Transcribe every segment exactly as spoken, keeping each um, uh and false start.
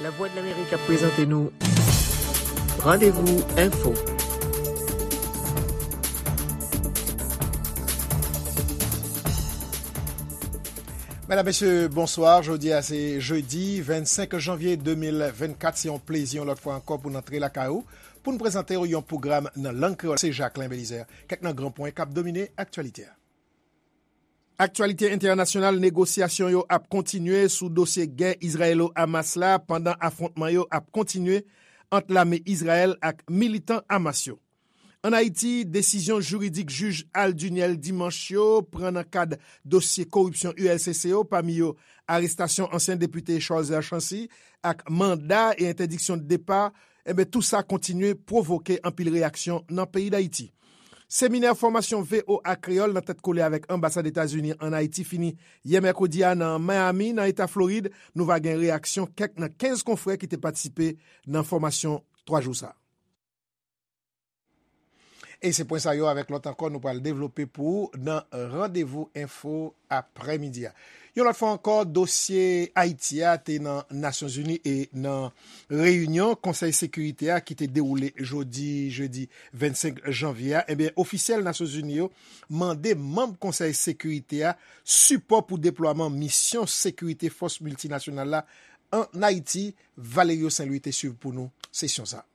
Lavwadlamerik ap prezante nou Randevou Enfo. Medam, mesye, bonswa. Jodi a se jedi vennsenk janvye de mil vennkat. Se yon plezi yon lòt fwa ankò pou n antre lakay ou, pou n prezante w yon pwogram nan lang kreyòl. Se Jacquelin Belizaire. Kèk nan gran pwen k ap domine aktyalite a. Aktyalite entènasyonal, negosyasyon yo ap kontinye sou dosye gè Izrayelo-Hamas la, pandan afwontman yo ap kontinye ant lame Izrayèl ak militan Hamas yo. Ann Ayiti, desizyon jiridik jij Al Duniel dimanch yo pran nan kad dosye koripsyon U L C C yo, pami yo arestasyon ansyen depite Charles Lachancy ak manda e entèdiksyon de depa, enben, tou sa kontinye pwovoke anpil reyaksyon nan peyi Dayiti. Seminè fòmasyon V O A Kreyòl nan tèt kole avèk anbasad Etazini ann Ayiti fini yè mèkredi a nan Miami, nan eta Florid. Nou va gen reyaksyon kèk nan kenz konfrè ki te patisipe nan fòmasyon twa jou sa a. E se pwen sa yo avèk lòt ankò nou pral devlope pou ou nan Randevou Enfo aprèmidi a. Yon lòt fwa ankò, dosye Ayiti a te nan Nasyonzini e nan reyinyon Konsèy Sekirite a ki te dewoule jodi, jedi vennsenk janvye a. Ebyen, ofisyèl Nasyonzini yo mande manm Konsèy Sekirite a sipò pou deplwaman misyon sekirite fòs miltinasyonal la ann Ayiti. Valerio Saint Louis te swiv pou nou sesyon sa a.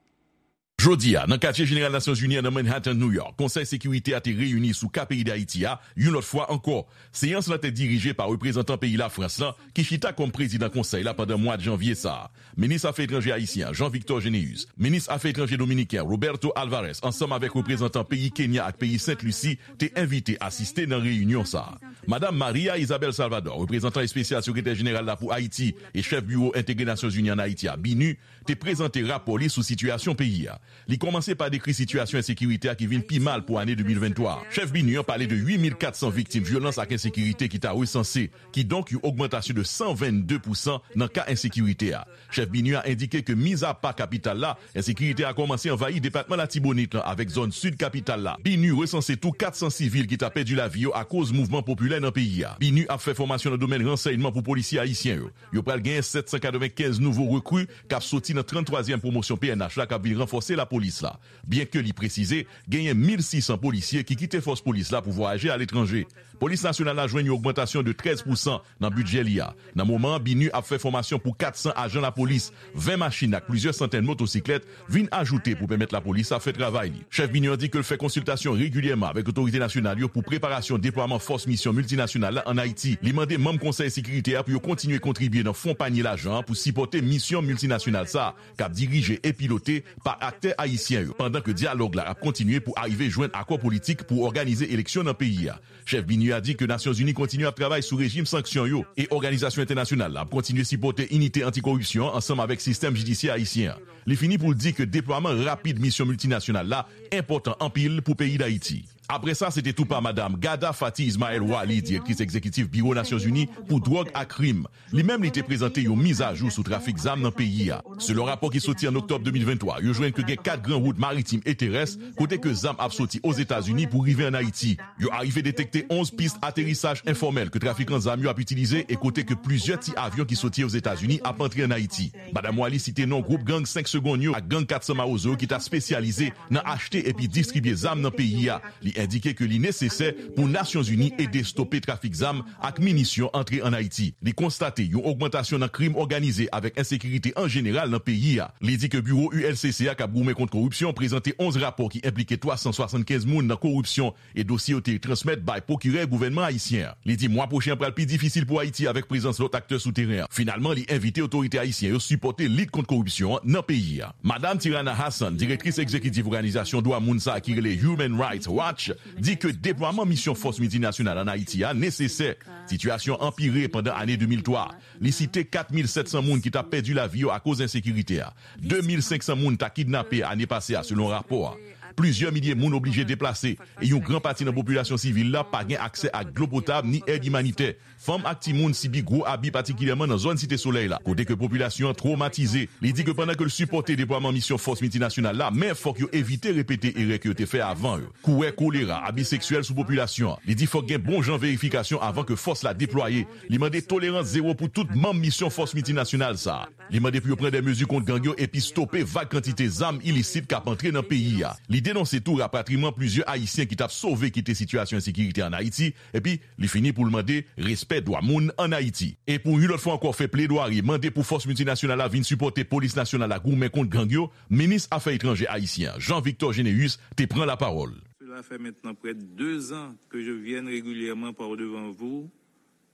Jodi a, nan katye jeneral Nasyonzini an nan Manhattan, New York, Konsèy Sekirite a te reyini sou ka peyi Dayiti a, yon lòt fwa ankò. Seyans lan te dirije pa reprezantan peyi Lafrans lan, ki chita kòm prezidan konsèy la pandan mwa janvye sa a. Minis afè etranjè ayisyen an, Jean Victor Généus, minis afè etranjè dominiken an, Roberto Alvarez, ansanm avèk reprezantan peyi Kenya ak peyi Sent Lisi, te envite asiste nan reyinyon sa a. Madam Maria Isabel Salvador, reprezantan espesyal sekretè jeneral la pou Ayiti e chèf biwo entegre Nasyonzini ann Ayiti a, BINUH, te prezante rapò li sou sitiyasyon peyi a. Li kòmanse pa dekri sitiyasyon ensekirite a ki vin pi mal pou ane de mil venntwa a. Chèf BINUH an pale de uit mil kat san viktim vyolans ak ensekirite ki ta resanse, kidonk yon ogmantasyon de san vennde pousan nan ka ensekirite a. Chèf BINUH a endike ke mizapa kapital la, ensekirite a kòmanse anvayi depatman Latibonit lan avèk zòn sid kapital la. BINUH resanse tou kat san sivil ki ta pèdi lavi yo akoz mouvman popilè nan peyi a. BINUH ap fè fòmasyon nan domèn ransèyman pou polisye ayisyen yo. Yo pral genyen sèt san katrevenkenz nouvo rekri k ap soti nan tranntwazyèm pwomosyon P N H la k ap vin ranfòse lapolis la. Byenke li presize, genyen mil sis san polisye ki kite fòs polis la pou vwayaje aletranje. Polis nasyonal la jwenn yon ogmantasyon de trèz pousan nan bidjè li a. Nan moman an, BINUH ap fè fòmasyon pou kat san ajan lapolis, ven machin ak plizyè santèn motosiklèt vin ajoute pou pèmèt lapolis la fè travay li. Chèf BINUH an di ke l fè konsiltasyon regilyèman avèk otorite nasyonal yo pou preparasyon deplwaman fòs misyon miltinasyonal la ann Ayiti. Li mande manm Konsèy Sekirite a pou yo kontinye kontribye nan fon panye lajan an pou sipòte misyon miltinasyonal sa a, k ap dirije e pilote pa aktè ayisyen yo, pandan ke dyalòg la ap kontinye pou arive jwenn akò politik pou òganize eleksyon nan peyi a. Chèf BINUH a di ke Nasyonzini kontinye ap travay sou rejim sanksyon yo e òganizasyon entènasyonal la ap kontinye sipòte inite antikoripsyon an ansanm avèk sistèm jidisyè ayisyen an. Li fini pou l di ke deplwaman rapid misyon miltinasyonal la enpòtan anpil pou peyi Dayiti. Apre sa, se te tou pa Madam Ghada Fathi Ismael Wali, direktris egzekitif Biwo Nasyonzini pou dwòg ak krim. Li menm, li te prezante yon mizajou sou trafik zam nan peyi a. Selon rapò ki soti an oktòb de mil venntwa, yo jwenn ke gen kat gran wout maritim e terès kote ke zam ap soti Ozetazini pou rive ann Ayiti. Yo arive detekte onz pis aterisaj enfòmèl ke trafikan zam yo ap itilize e kote ke plizyè ti avyon ki soti Ozetazini ap antre ann Ayiti. Madam Wali site non gwoup gang senk segonn yo ak gang kat san Mawozo yo ki ta espesyalize nan achte epi distribye zam nan peyi a. Li endike ke li nesesè pou Nasyonzini ede stope trafik zam ak minisyon antre ann Ayiti. Li konstate yon ogmantasyon nan krim òganize avèk ensekirite an jeneral nan peyi a. Li di ke biwo U L C C a k ap goumen kont koripsyon prezante onz rapò ki enplike twa san swasannkenz moun nan koripsyon e dosye yo te transmèt bay pwokirè gouvènman ayisyen an. Li di mwa pwochen an pral pi difisil pou Ayiti avèk prezans lòt aktè sou teren an. Finalman, li envite otorite ayisyen yo sipòte lit kont koripsyon an nan peyi a. Madam Tirana Hassan, direktris egzekitif òganizasyon dwa moun sa a ki rele Human Rights Watch, di ke deplwaman misyon fòs miltinasyonal ann Ayiti a nesesè. Sitiyasyon an anpire pandan ane de mil twa. Li site kat mil sèt san moun ki t ap pèdi lavi yo akoz ensekirite a. De mil senk san moun ta kidnape ane pase a, selon rapò a. Plizyè milye moun oblije deplase, e yon gran pati nan popilasyon sivil la pa gen aksè ak dlo potab ni èd imanitè. Fanm ak timoun sibi gwo abi, patikilyèman nan zòn Site Solèy la, kote ke popilasyon an twomatize. Li di ke pandan ke l sipòte deplwaman misyon fòs miltinasyonal la, men fòk yo evite repete erè ke yo te fè avan yo. Kouwè kolera, abi seksyèl sou popilasyon an. Li di fòk gen bon jan verifikasyon avan ke fòs la deplwaye. Li mande tolerans zewo pou tout manm misyon fòs miltinasyonal sa a. Li mande pou yo pran de mezi kont gang yo epi stope vag kantite zam ilisit k ap antre nan peyi a. Li denonse tou rapatriman plizyè Ayisyen ki t ap sove kite sitiyasyon ensekirite ann Ayiti, epi li fini pou l mande respè dwa moun ann Ayiti. E pou yon lòt fwa ankò fè pledwari, mande pou fòs miltinasyonal la vin sipòte polis nasyonal la goumen kont gang yo, minis afè etranjè ayisyen an, Jean Victor Généus, te pran lapawòl. Cela fait maintenant près de deux ans que je viens régulièrement par devant vous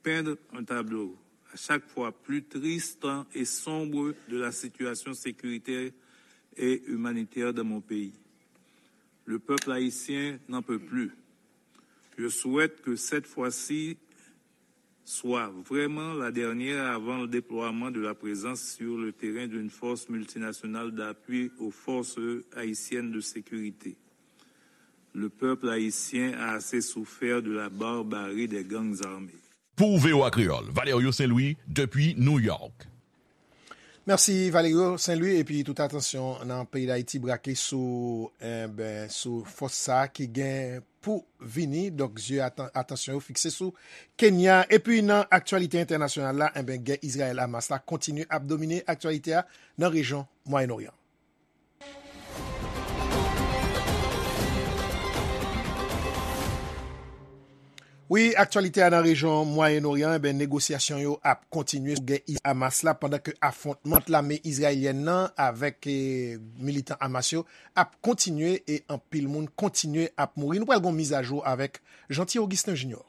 peindre un tableau à chaque fois plus triste et sombre de la situation sécuritaire et humanitaire dans mon pays. Le peuple haïtien n'en peut plus. Je souhaite que cette fois-ci soit vraiment la dernière avant le déploiement de la présence sur le terrain d'une force multinationale d'appui aux forces haïtiennes de sécurité. Le peuple haïtien a assez souffert de la barbarie des gangs armés. Pou V O A Kreyòl, Valerio Saint-Louis, depi New York. Mèsi Valerio Saint-Louis, epi tout atansyon nan peyi Dayiti brake sou, enben, sou fòs sa a ki gen pou vini. Donk, zye atan-, atansyon yo fikse sou Kenya. Epi nan aktyalite entènasyonal la, enben, gè Izrayèl-Hamas la kontinye ap domine aktyalite a nan rejyon Mwayen Oryan. Wi, aktyalite a nan rejyon Mwayen Oryan, enben, negosyasyon yo ap kontinye sou gè Is-, Hamas la, pandan ke afwontman ant lame izrayelyèn nan avèk, eh, militan Hamas yo ap kontinye e anpil moun kontinye ap mouri. Nou pral gon mizajou avèk Jeanty Augustin Junior.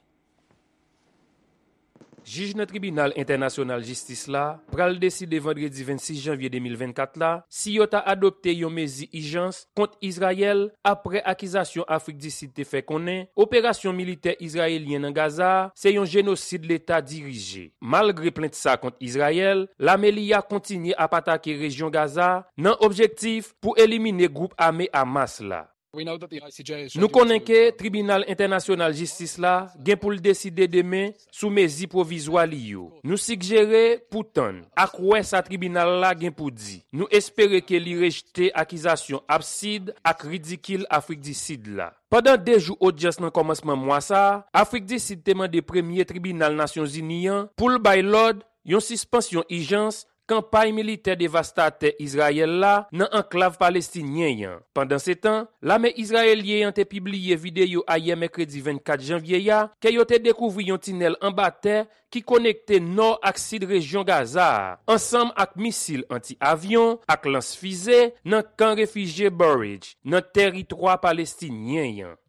Jij nan Tribinal Entènasyonal Jistis la pral deside vandredi vennsis janvye de mil vennkat la si yo ta adopte yon mezi ijans kont Izrayèl apre akizasyon Afrik di Sid te fè konnen operasyon militè izrayelyen nan Gaza a se yon jenosid Leta dirije. Malgre plent sa kont Izrayèl, lame li a kontinye ap atake rejyon Gaza a nan objektif pou elimine gwoup ame Hamas la. Nou konnen ke Tribinal Entènasyonal Jistis la gen pou l deside demen sou mezi pwovizwa li yo. Nou sigjere pou tann ak wè sa tribinal la gen pou di. Nou espere ke li rejte akizasyon absid ak ridikil Afrik di Sid la. Pandan de jou odyans nan kòmansman mwa sa a, Afrik di Sid te mande premye tribinal Nasyonzini an pou l bay lòd yon sispansyon ijans kanpay militè devastatè Izrayèl la nan anklav palestinyen an. Pandansetan, lame izrayelyen an te pibliye videyo ayè mèkredi vennkat janvye a ke yo te dekouvri yon tinèl anba tè ki konekte nò ak sid rejyon Gaza a, ansanm ak misil anti-avyon ak lans fize nan kan refijye Bureij, nan tèritwa palestinyen an.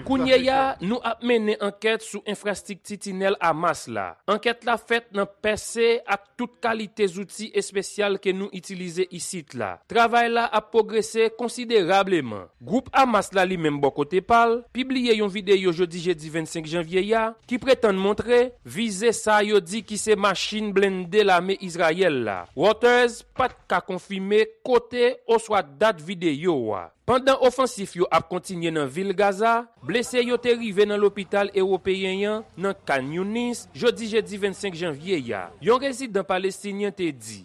Kounye a, nou ap mennen ankèt sou enfrastrikti tinèl Hamas la. Ankèt la fèt nan pèse ak tout kalite zouti espesyal ke nou itilize isit la. Travay la ap pwogrese konsiderableman. Gwoup Hamas la, li menm, bò kote pa l, pibliye yon videyo jodi jedi vennsenk janvye a ki pretann montre vize sa yo di ki se machin blende lame Izrayèl la. Reuters pa t ka konfime kote oswa dat videyo a. Pandan ofansif yo ap kontinye nan vil Gaza, blese yo te rive nan lopital ewopeyen an nan Khan Younis jodi jedi vennsenk janvye a. Yon rezidan palestinyen te di,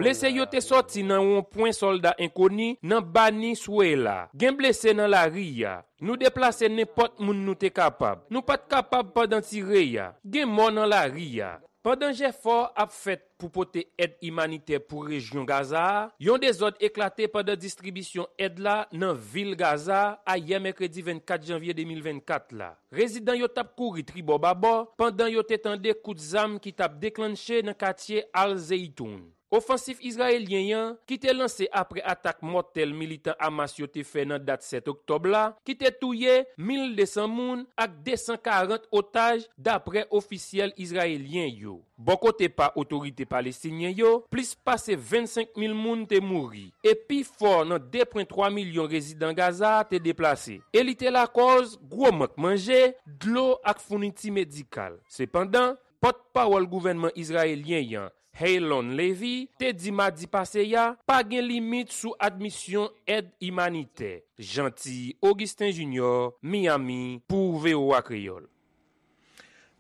blese yo te sòti nan wonpwen sòlda enkoni nan Bani Souela. Gen blese nan lari a. Nou deplase nenpòt moun nou te kapab. Nou pa t kapab pandan tire a. Gen mò nan lari a. Pandan jefò ap fèt pou pote èd imanitè pou rejyon Gaza a, yon dezòd eklate pandan distribisyon èd la nan vil Gaza a ayè mèkredi vennkat janvye de mil vennkat la. Rezidan yo t ap kouri tribò babò pandan yo te tande kout zam ki t ap deklannche nan katye Al Zeitoun. Ofansif izrayelyen an, ki te lanse apre atak mòtèl militan Hamas yo te fè nan dat sèt oktòb la, ki te touye mil de san moun ak de san karant otaj, dapre ofisyèl izrayelyen yo. Bò kote pa otorite palestinyen yo, plis pase vennsenk mil moun te mouri, e pi fò nan de pwen twa milyon rezidan Gaza a te deplase, e li te lakòz gwo mank manje, dlo ak founiti medikal. Sepandan, pòtpawòl gouvènman izrayelyen an, Haylon Levy, te di madi pase a pa gen limit sou admisyon èd imanitè. Jeanty Augustin Junior, Miami, pou V O A Kreyòl.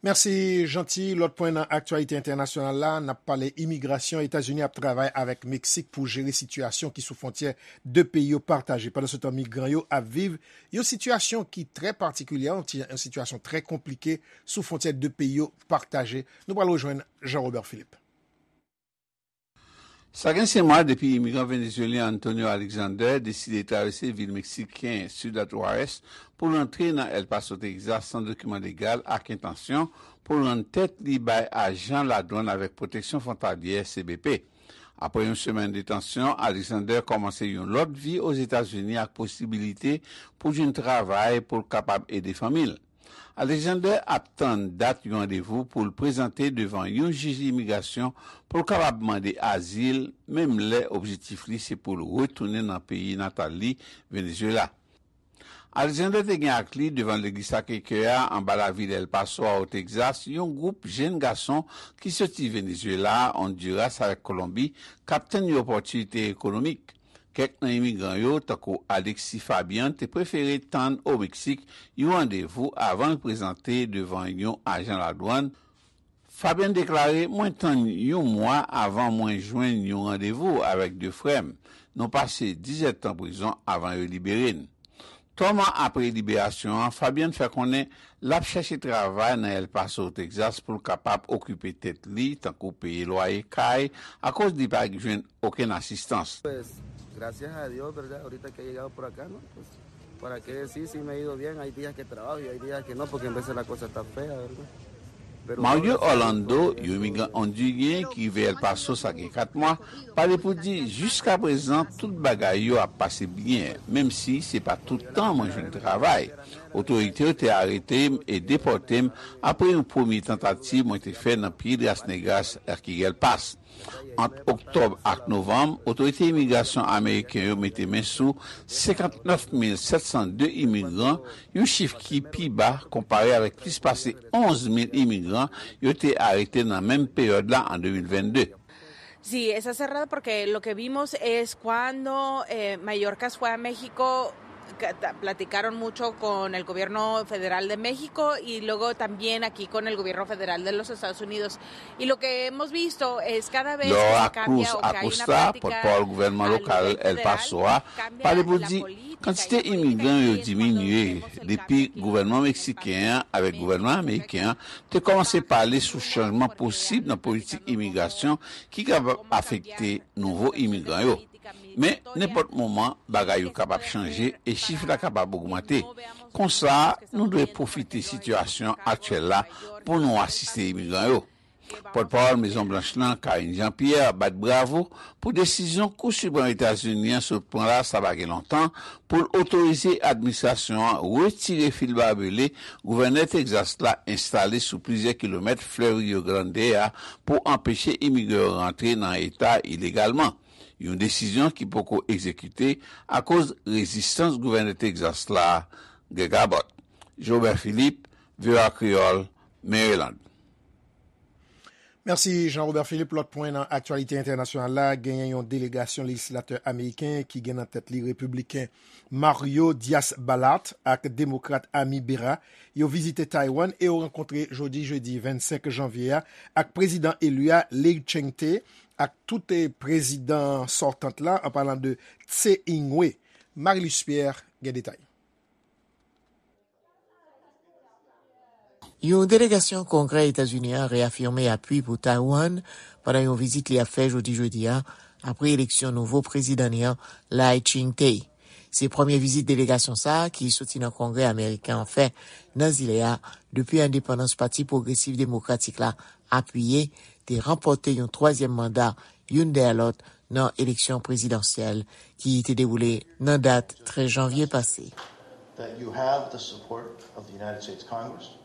Mèsi, Jeanty. Lòt pwen nan aktyalite entènasyonal la, n ap pale imigrasyon. Etazini ap travay avèk Meksik pou jere sitiyasyon ki sou fwontyè de peyi yo pataje. Pandansetan, migran yo ap viv yon sitiyasyon ki trè patikilye, yon ti- yon sitiyasyon trè konplike sou fwontyè de peyi yo pataje. Nou pral rejwenn Jean Robert Philippe. Sa gen senk mwa depi imigran venezuelyen Antonio Alexander deside travèse vil meksiken Ciudad Juárez pou l antre nan El Paso, Texas, san dokiman legal ak entansyon pou l rann tèt li bay ajan ladwann avèk pwoteksyon fwontalyè, C B P. Apre yon semèn detansyon, Alexander kòmanse yon lòt vi Ozetazini ak posibilite pou l jwenn travay pou l kapab ede fanmi l. Alexander ap tann dat yon randevou pou l prezante devan yon jij imigrasyon pou l kapab mande azil, menm lè objektif li se pou l retounen nan peyi natal li, Venezuela. Alexander te gen ak li devan legliz Sacré-Cœur a anba lavil El Paso a, o Texas, yon gwoup jenn gason ki soti Venezuela, Honduras avèk Kolonbi k ap tann yon opòtinite ekonomik. Kèk nan imigran yo, tankou Alexis Fabian, te prefere tann o Meksik yon randevou avan l prezante devan yon ajan ladwann. Fabian deklare, "Mwen tann yon mwa avan mwen jwenn yon randevou avèk de frè m. Nou pase diz èdtan prizon avan yo libere n." Twa mwa apre liberasyon an, Fabian fè konnen l ap chèche travay nan El Paso, Texas, pou l kapab okipe tèt li, tankou peye lwaye kay, akoz li pa jwenn okenn asistans. Pues, gracias a Dios, ¿verdad? Ahorita que he llegado por acá, ¿no? Pues, ¿para qué decir si me ha ido bien? Hay días que trabajo y hay días que no, porque en veces la cosa está fea, ¿verdad? Pero Mario Orlando, yon imigran ondiryen ki rive El Paso sa gen kat mwa, pale pou di, "Jiskaprezan, tout bagay yo ap pase byen, menm si se pa tout tan mwen jwenn travay. Otorite yo te arete m e depòte m apre yon premye tantativ mwen te fè nan Piedras Negras, Las Quiguelpas." Ant oktòb ak novanm, otorite imigrasyon ameriken yo mete men sou senkantnèf mil sèt san de imigran, yon chif ki pi ba konpare avèk plis pase onz mil imigran yo te arete nan menm peryòd la an de mil vennde. Sí, está cerrado porque lo que vimos es cuando eh, Mallorca fue a México, ca- ta- platicaron mucho con el gobierno federal de México y luego también aquí con el gobierno federal de los Estados Unidos. Y lo que hemos visto es cada vez que Laura se cambia Cruz o que hay una Acosta, política pòtpawòl gouvènman a lokal nivel El federal, Paso a, cambia pale pou la di política y kantite la política imigran yo que es cuando diminye hemos el depi cambio aquí. Gouvènman meksiken an avèk gouvènman ameriken an te kòmanse pale sou chanjman posib nan politik imigrasyon ki kapab afekte nouvo imigran yo. Men, nenpòt moman, bagay yo kapab chanje e chif la kapab ogmante. Konsa, nou dwe pwofite sitiyasyon aktyèl la pou nou asiste imigran yo. Pòtpawòl Mezon Blanch lan, Karine Jean-Pierre, bat bravo pou desizyon Kou Siprèm Etazini an sot pran la sa pa gen lontan pou l otorize administrasyon an retire fil babele gouvènè Tegzas la enstale sou plizyè kilomèt flèv Rio Grande a pou anpeche imigran yo rantre nan eta ilegalman. Yon desizyon ki poko egzekite akoz rezistans gouvènè Tegzas la, Greg Abbott. Jobert Philippe, V O A Kreyòl, Maryland. Mèsi, Jean Robert Philippe. Lòt pwen nan aktyalite entènasyonal la, genyen yon delegasyon lejislatè ameriken ki gen nan tèt li repibliken Mario Diaz-Balart ak demokrat Ami Bera. Yo vizite Taiwan e yo rankontre jodi jedi vennsenk janvye a ak prezidan eli a Lai Ching-te ak tout, eh, prezidan sòtant la, an palan de Tsai Ing-wen. Marilus Pierre gen detay. Yon delegasyon Kongrè Etazini an reyafime apui pou Taiwan pandan yon vizit li ap fè jodi jedi a, apre eleksyon nouvo prezidan li an, Lai Ching-te. Se premye vizit delegasyon sa a ki soti nan Kongrè ameriken an fè nan zile a depi endepandans Pati Pwogresif Demokratik la apiye te ranpòte yon twazyèm manda youn dèyè lòt nan eleksyon prezidansyèl ki te dewoule nan dat trèz janvye pase. That you have the support of the United States Congress,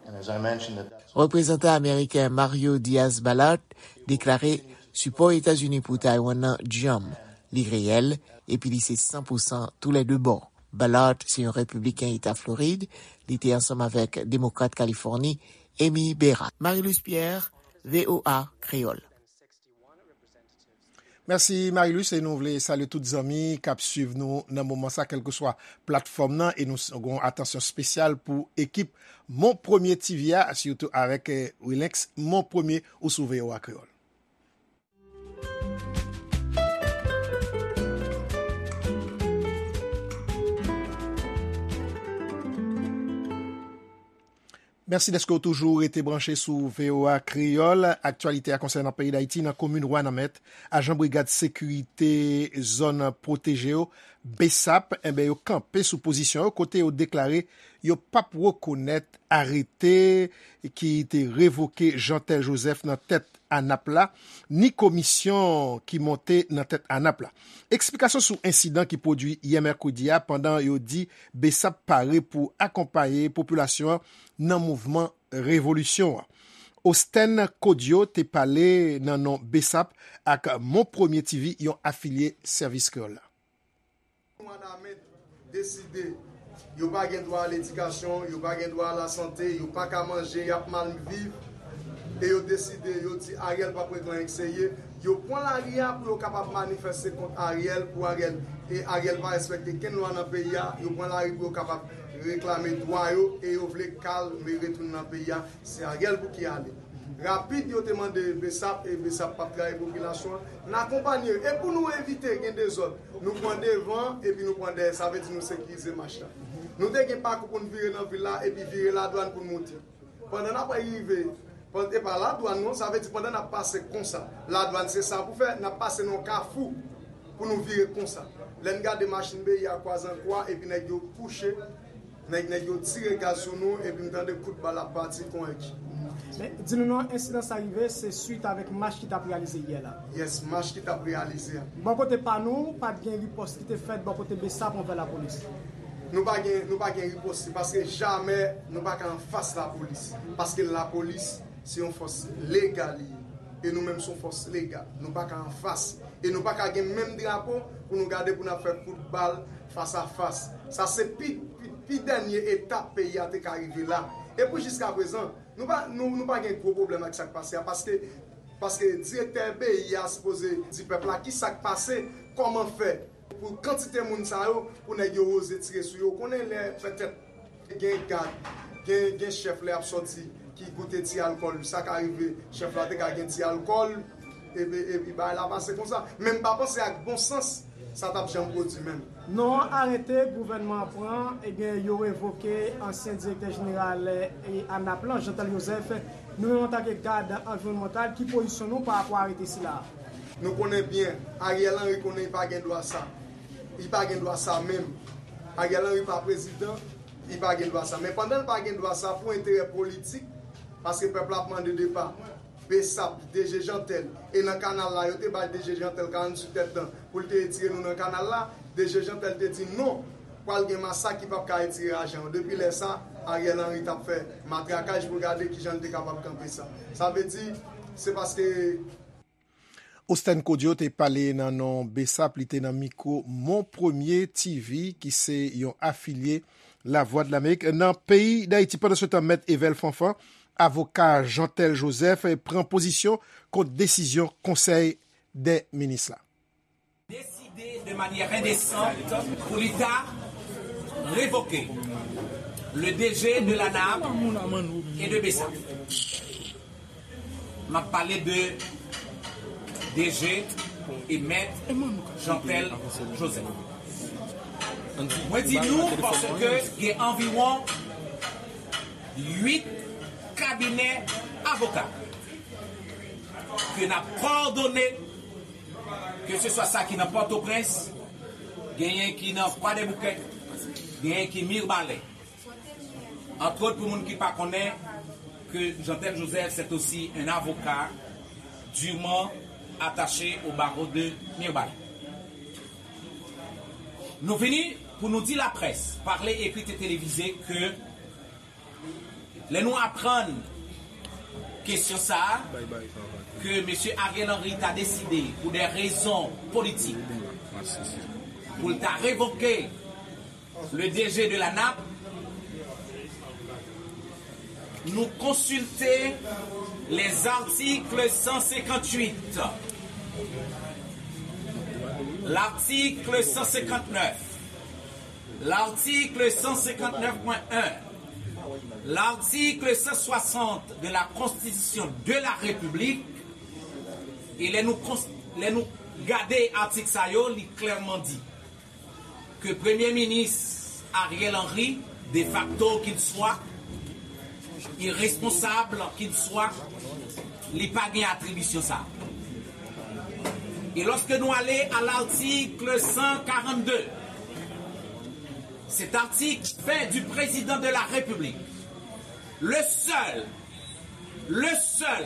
and as I mentioned, that that's Reprezantan ameriken Mario Diaz-Balart deklare sipò Etazini pou Taiwan nan djanm, li reyèl, epi li se san pou san toulède bò. Balart se yon repibliken eta Florid, li te ansanm avèk demokrat Kalifòni, Amy Bera. Marilus Pierre, V O A Kreyòl. Mèsi, Marilus, e nou vle salye tout zanmi k ap swiv nou nan moman sa, kèlkeswa platfòm nan, e nou s- gon atansyon espesyal pou ekip Mon Premye T V a, sitou avèk eh, Wilenx Mon Premye ou sou V O A Kreyòl. Mèsi dèske w toujou rete branche sou V O A Kreyòl. Aktyalite a konsènan peyi Dayiti, nan komin Wanament, ajan brigad sekirite zòn pwoteje yo, BSAP, enben, yo kanpe sou pozisyon yo, kote yo deklare yo p ap rekonèt arete ki te revoke Jeantel Joseph nan tèt ANAP la, ni komisyon ki monte nan tèt ANAP la. Eksplikasyon sou ensidan ki pwodui yè mèkredi a, pandan yo di BSAP pare pou akonpaye popilasyon an nan mouvman revolisyon an. Osten Kodyo te pale nan non BSAP ak Mon Premye T V, yon afilye Sèvis Kreyòl la. Wanament deside yo pa gen dwa a ledikasyon, yo pa gen dwa a lasante, yo pa ka manje, y ap mal viv. E yo deside, yo di Ariel p ap regle anyen k serye. Yo pran lari a pou yo kapab manifeste kont Ariel, pou Ariel, e Ariel pa respekte kenn lwa nan peyi a. Yo pran lari pou yo kapab reklame dwa yo, e yo vle kalm e retounen nan peyi a. Se Ariel pou ki ale. Rapid, yo te mande BSAP, e BSAP p ap trayi popilasyon an. N akonpanye yo. E pou nou evite gen dezòd, nou pran devan, epi nou pran dèyè. Sa vle di nou sekirize mach la. Nou te gen pakou pou n vire nan vil la, epi vire Ladwàn pou n moute. Pandan n ap rive, pan- e pa Ladwàn non, sa vle di pandan n ap pase konsa, Ladwàn se sa pou fè, n ap pase nan yon kafou pou nou vire konsa. Lè n gade machin B I A kwaze an kwa, epi nèg yo kouche, nèg, nèg yo tire gaz sou nou, epi m tande kout bal ap pati kon èk. Men, di nou non, ensidan sa rive, se swit avèk mach ki t ap reyalize yè la. Yes, mach ki t ap reyalize a. Bò kote pa nou, pa t gen ripòs ki te fèt bò kote BSAP anvè lapolis. Nou pa gen, nou pa gen ripòs, se paske jamè nou pa ka anfas lapolis. Paske lapolis, se yon fòs legal li ye. E nou menm, se yon fòs legal. Nou pa ka anfas. E nou pa ka gen menm drapo pou nou gade pou n ap fè kout bal fas a fas. Sa se pi, pi, pi dènye etap peyi a te ka rive la. E pou jiska prezan, nou pa, nou, nou pa gen gwo pwoblèm ak sa k pase a, paske, paske direktè B I A sipoze di pèp la ki sa k pase, kòman fè pou kantite moun sa yo, pou nèg yo oze tire sou yo. Ou konnen lè petèt gen gad, gen, gen chèf lè y ap sòti ki goute ti alkòl, sa ka rive, chèf la te ka gen ti alkòl, epi, epi bagay la pase konsa. Men m pa panse ak bon sans, sa t ap janm pwodui menm. Non, arete gouvènman an pran, ebyen, yo revoke ansyen direktè jeneral, eh, ANAP lan, Jeantel Joseph. Nou menm, antanke gad anviwònmantal, ki pozisyon nou pa rapò a arete sila a? Nou konnen byen, Ariel Henry konnen li pa gen dwa sa. Li pa gen dwa sa menm. Ariel Henry pa prezidan, li pa gen dwa sa. Men pandan l pa gen dwa sa, pou enterè politik, paske pèp la ap mande depa, BSAP, DG Jeantel, e nan kanal la, yo te bay DG Jeantel karanntuit èdtan pou l te retire nou nan kanal la, DG Jeantel te di non, pral gen masak ki p ap ka retire ajan yo. Depi lè sa, Ariel Henry t ap fè matrakaj pou gade kijan l te kapab kanpe sa. Sa vle di, se paske Osten Kodyo te pale nan non BSAP, li te nan mikwo Mon Premye TV, ki se yon afilye Lavwadlamerik nan peyi Dayiti. Pandansetan, Mèt Evel Fanfan, avoka Jeantel Joseph, pran pozisyon kont desizyon Konsèy dè Minis la. Décidé de manière indécente pour l'État révoquer le D G de l'ANAP et de BSAP. M ap pale de D G e Mèt Jeantel Joseph. Mwen di nou paske gen anviwon uit kabinè avoka ke n ap kòdone, ke se swa sa ki nan Pòtoprens, genyen ki nan Kwadèboukè, genyen ki Mirbalè. Entre autres, pou moun ki pa konnen, que Jeantel Joseph, c'est aussi un avocat durement attaché au barreau de Mirbalè. Nou vini pou nou di laprès, parlé, écrit et télévisé, ke lè nou aprann kesyon sa a, ke mesye Ariel Henry ta deside, pou de rezon politik, pou l ta revoke le D G de l'ANAP, nou konsilte les articles cent cinquante-huit, L'article cent cinquante-neuf, l'article cent cinquante-neuf point un, l'article cent soixante de la Constitution de la République, e lè nou, kons- lè nou gade atik sa yo, li klèman di ke Premye Minis Ariel Henry, de facto qu'il soit, irresponsable qu'il soit, li pa gen atribisyon sa. E lòske nou ale a l'article cent quarante-deux, cet article fait du président de la République le seul, le seul,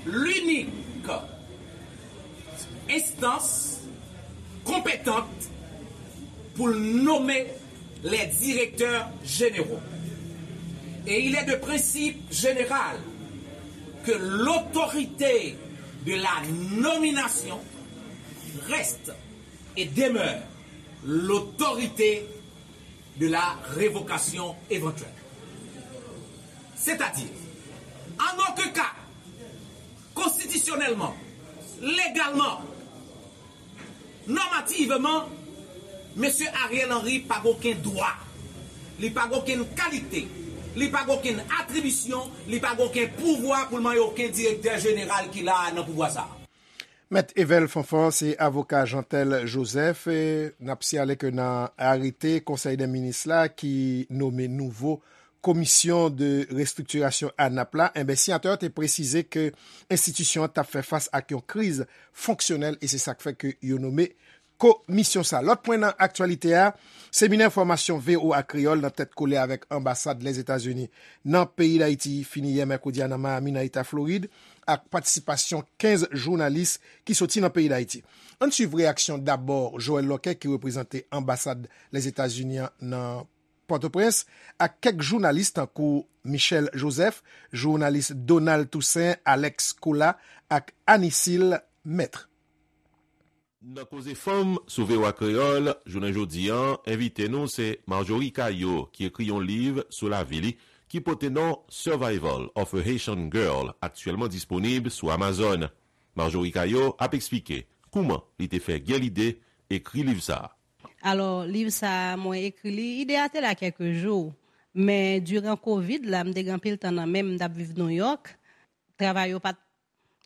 l'unique instance compétente pour nommer les directeurs généraux. Et il est de principe général que l'autorité de la nomination reste et demeure l'autorité de la révocation éventuelle. C'est-à-dire, en aucun cas, constitutionnellement, légalement, normativement, Mesye Ariel Henry pa gen okenn dwa, li pa gen okenn kalite, li pa gen okenn atribisyon, li pa gen okenn pouvwa pou l manyen okenn direktè jeneral ki la a nan pouvwa sa a. Mèt Evel Fanfan se avoka Jeantel Joseph. N ap siyale ke nan arete Konsèy dè Minis la ki nome nouvo Komisyon de Restriktirasyon a nap la, enben siyatè yo te presize ke enstitisyon an t ap fè fas ak yon kriz fonksyonèl e se sa k fè ke yo nome komisyon sa. Lòt pwen nan aktyalite a, seminè fòmasyon V O A Kreyòl nan tèt kole avèk anbasad Lèzetazini nan peyi Dayiti fini yè mèkredi a nan Miami nan eta Florid ak patisipasyon kenz jounalis ki soti nan peyi Dayiti. Ann swiv reyaksyon dabò Joël Lorquet ki reprezante anbasad Lèzetazini an nan Pòtoprens ak kèk jounalis tankou Michel Joseph, jounalis Donald Toussaint, Alex Colas ak Anisil Maître. Nan Koze Fanm sou V O A Kreyòl, jounen jodi a, envite nou se Marjorie Caillot ki ekri yon liv sou lavi li ki pote non Survival of a Haitian Girl, aktyèlman disponib sou Amazon. Marjorie Caillot ap eksplike kouman li te fè gen lide ekri liv sa a. Alò, liv sa a, mwen ekri li, ide a te la kèlke jou, men diran kovid la, m te gen anpil tan nan men m, m t ap viv Nouyòk, travay yo pa t,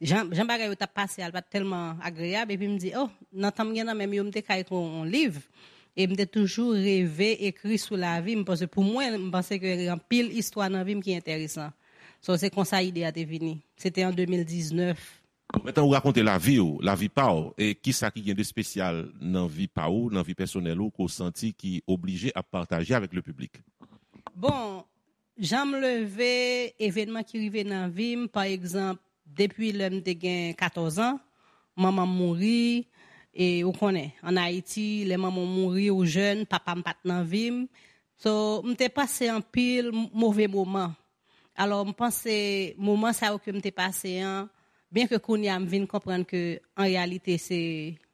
jan, jan bagay yo t ap pase a, l pa t tèlman agreyab, epi m di, oh, nan tan m gen nan men m yo, m te ka ekri yon liv, e m te toujou reve ekri sou lavi m, paske pou mwen, m panse ke gen anpil istwa nan vi m ki enteresan. So, se konsa ide a te vini. Se te an de mil diznèf. Bon, men tan ou rakonte lavi w, lavi pa w, e kisa ki gen de espesyal nan vi pa ou, nan vi pèsonèl ou, ke w santi ki oblije ap pataje avèk le piblik? Bon, jan m leve, evènman ki rive nan vi m, pa egzanp, depi lè m te gen katòz an, manman m mouri, e ou konnen, ann Ayiti, lè manman w mouri, ou jèn, papa m pa t nan vi m. So, m te pase anpil move moman. Alò, m panse moman sa yo ke m te pase an, byen ke kounye a m vin konprann ke an reyalite se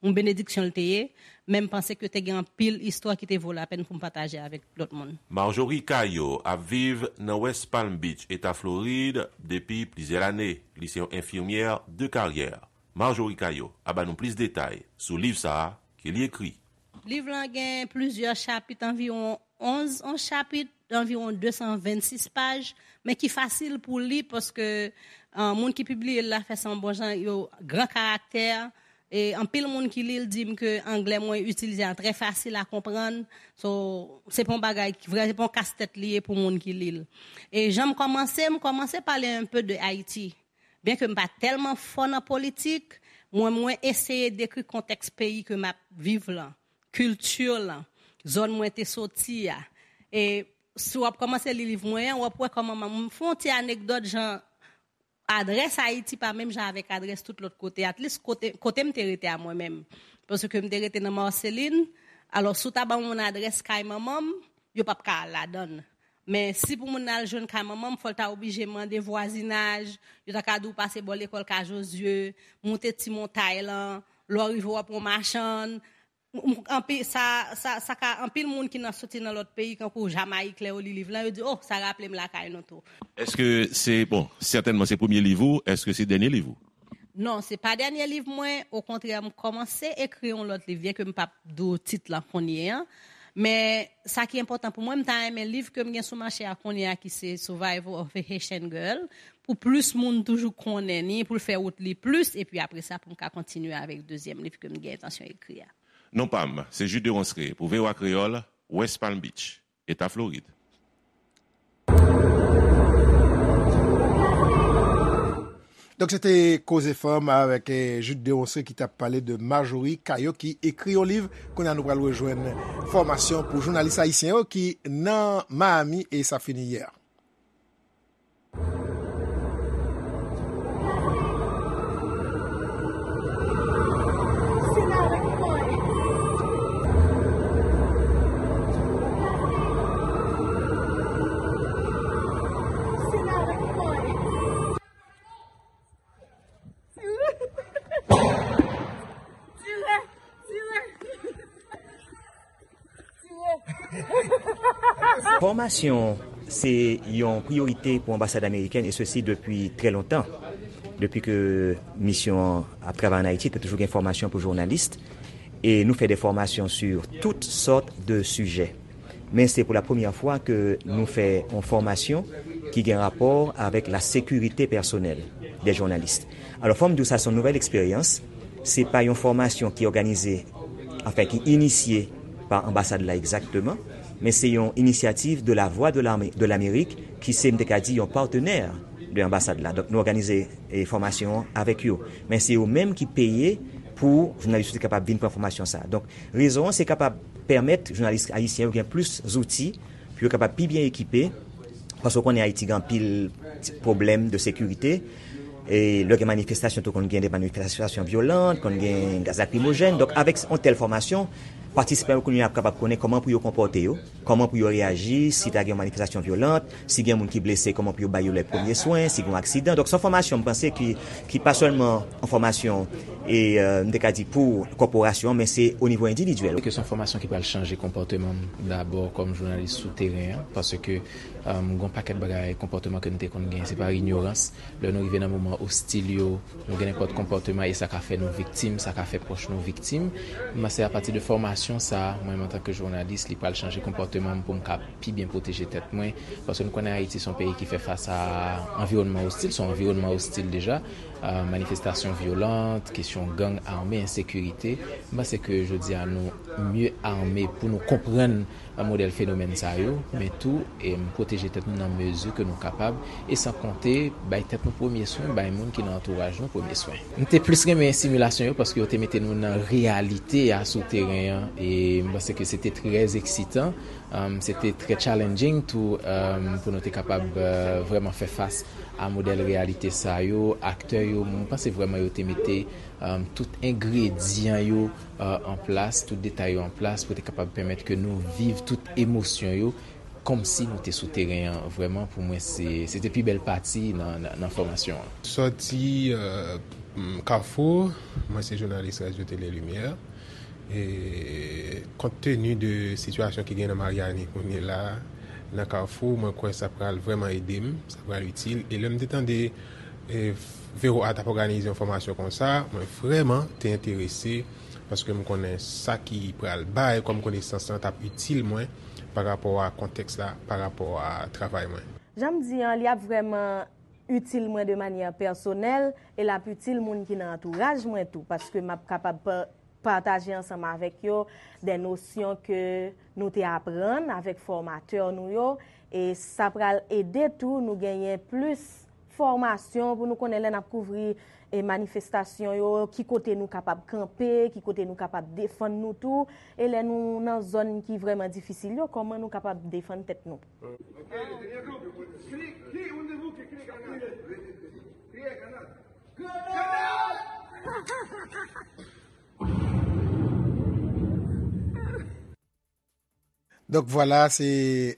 yon benediksyon l te ye, men m panse ke te gen anpil istwa ki te vo lapèn pou m pataje avèk lòt moun. Marjorie Caillot ap viv nan West Palm Beach, Eta Florid, depi plizyè lane. Li se yon enfimyè de karyè. Marjorie Caillot ap ba nou plis detay sou liv sa a ke li ekri. Liv lan gen plizyè chapit, anviwon onz, onz chapit, anviwon de san vennsis paj, men ki fasil pou li paske moun ki pibliye l la fè sa yon bon jan, yo gran karaktè. E anpil moun ki li l di m ke anglè mwen itilize a trè fasil a konprann. So, se pa yon bagay ki vrè, se pa yon kastèt li ye pou moun ki li l. E jan m kòmanse, m kòmanse pale un peu de Ayiti. Byen ke m pa tèlman fò nan politik, mwen mwen eseye dekri kontèks peyi ke m ap viv lan, kilti lan, zòn mwen te soti a. E si w ap kòmanse li liv mwen an, w ap wè kòman m fè yon ti anekdòt jan adrès Ayiti pa menm jan avèk adrès tout lòt kote, at least kote, kote m te rete a mwen menm. Paske m te rete nan Marceline, alò si w ta ban moun adrès kay manman m, yo p ap ka al ladan l. Men si pou moun nan al jwenn kay manman m, fò l ta oblije mande vwazinaj, yo ta ka di w pase bò lekòl Ka Jozye, moute ti montay lan, lè w rive w ap yon machann. Anpil, sa, sa, sa ka, anpil moun ki nan soti nan lòt peyi, kankou Jamayik, lè yo li liv lan, yo di, oh, sa raple m lakay nou tou. Èske se, bon, sètènman se premye liv ou, èske se dènye liv ou? Non, se pa dènye liv mwen, okontrè, m kòmanse ekri yon lòt liv, byen ke m p ap di w tit lan kounye a. Men, sa ki enpòtan pou mwen, m ta renmen liv ke m gen sou mache a kounye a, ki se Survival of a Haitian Girl, pou plis moun toujou konnen ni, pou l fè wout li plis, epi apre sa, pou m ka kontinye avèk dezyèm liv ke m gen entansyon ekri a. Non pa m, se Jude Deronceray pou V O A Kreyòl, West Palm Beach, Eta Florid. Donk, se te Koze Fanm avèk, eh, Jude Deronceray ki t ap pale de Marjorie Caillot ki ekri yon liv. Kounye a, nou pral rejwenn fòmasyon pou jounalis ayisyen yo ki nan Miami e sa fini yè. Fòmasyon se yon priyorite pou anbasad amerikèn, e sesi depi trè lontan. Depi ke misyon an ap travay ann Ayiti, te toujou gen fòmasyon pou jounalis. E nou fè de fòmasyon sur tout sòt de sijè. Men se pou la premyè fwa ke nou fè yon fòmasyon ki gen rapò avèk la sekirite pèsonèl de jounalis. Alò, fò m di w sa se yon nouvèl eksperyans. Se pa yon fòmasyon ki òganize, anfen, ki inisye pa anbasad la egzakteman, men se yon inisyativ de la Voix de l'Amé-, de l'Amérique, ki se, m te ka di, yon patenè de anbasad la. Donk, nou òganize, e, fòmasyon an avèk yo. Men se yo menm ki peye pou jounalis yo te kapab vin pran fòmasyon sa a. Donk, rezon an, se kapab pèmèt jounalis ayisyen yo gen plis zouti pou yo kapab pi byen ekipe, paske w konnen Ayiti gen anpil ti pwoblèm de sekirite. E lè gen manifestasyon, tou konn gen de manifestasyon vyolan, konn gen gaz lakrimojèn. Donk, avèk yon tèl fòmasyon, patisipan yo kounye a ap kapab konnen kòman pou yo konpòte yo, kòman pou yo reyaji si ta gen yon manifestasyon vyolan, si gen moun ki blese, kòman pou yo ba yo lè premye swen, si gen yon aksidan. Donk, se yon fòmasyon, m panse, ki, ki pa sèlman yon fòmasyon, e, e, m te ka di pou kòporasyon, men se o nivo endividyèl. Ke se yon fòmasyon ki pral chanje konpòteman m dabò kòm jounalis sou teren an, paske, e, m gen yon pakèt bagay, konpòteman ke m te konn gen, se pa inyorans. Lè nou rive nan moman ostil yo, nou gen nenpòt konpòteman e sa ka fè nou viktim, sa ka fè pwòch nou viktim. M panse apati de fòmasyon sa a, mwen menm antanke jounalis, li pral chanje konpòteman m pou m ka pi byen pwoteje tèt mwen. Paske nou konnen Ayiti se yon peyi ki fè fas a anviwònman ostil, se yon anviwònman ostil deja. E, manifestasyon vyolan, kesyon gang ame, ensekirite. M panse ke jodi a nou mye ame pou nou konprann modèl fenomèn sa yo, men tou, e, pwoteje tèt nou nan mezi ke nou kapab, e san konte bay tèt nou premye swen, bay moun ki nan antouraj nou premye swen. M te plis renmen similasyon yo paske yo te mete nou nan reyalite a sou teren an, e m panse ke se te trè eksitan, um, se te trè challenging tou, um, pou nou te kapab, uh, vrèman fè fas a modèl reyalite sa yo, aktè yo, m panse vrèman yo te mete, um, tout engredyan yo, uh, an plas, tout detay yo an plas pou te kapab pèmèt ke nou viv tout emosyon yo kòmsi nou te sou teren an. Vrèman, pou mwen, se, se te pi bèl pati nan, nan, nan fòmasyon an. Sòti, euh, m, Kafou, mwen se jounalis Radyo Tele Limyè. E kont teni de sitiyasyon ki gen nan Maryani kounye la, nan Kafou, mwen kwè sa pral vrèman ede m, sa pral itil. E lè m te tande, e, V O A t ap òganize yon fòmasyon konsa, mwen vrèman te enterese, paske m konnen sa ki pral bay kòm konesans lan t ap itil mwen pa rapò a kontèks la, pa rapò a travay mwen. Jan m di an, li ap vrèman itil mwen de manyè pèsonèl e l ap itil moun ki nan antouraj mwen tou, paske m ap kapab pa-, pataje ansanm avèk yo de nosyon ke nou te aprann avèk fòmatè nou yo, e sa pral ede tou nou genyen plis fòmasyon pou nou konnen lè n ap kouvri, e, manifestasyon yo, ki kote nou kapab kanpe, ki kote nou kapab defann nou tou, e lè nou nan zòn ki vrèman difisil yo, kòman nou kapab defann tèt nou. Donk, vwala, se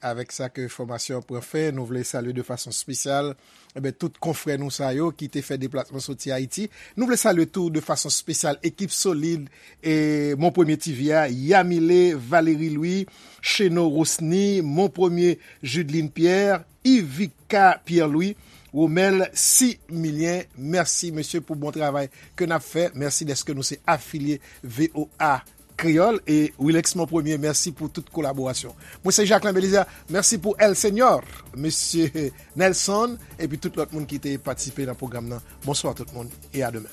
avèk sa ke fòmasyon an pran fen. Nou vle salye de fason espesyal, enben, tout konfrè nou sa yo ki te fè deplasman soti Ayiti. Nou vle salye tou de fason espesyal ekip solid, e, Mon Premye T V a, Yamile Valery Louis, Cheno Rosny, Mon Premye Judeline Pierre, Ivica Pierre Louis, Romel Similien, mèsi mesye pou bon travay ke n ap fè. Mèsi dèske nou se afilye V O A Kreyòl. E Wilex Mon Premye, mèsi pou tout kolaborasyon. Mwen se Jacquelin Belizaire, mèsi pou El Señor, mesye Nelson, epi tout lòt moun ki te patisipe nan pwogram nan. Bonswa tout moun, e a demen.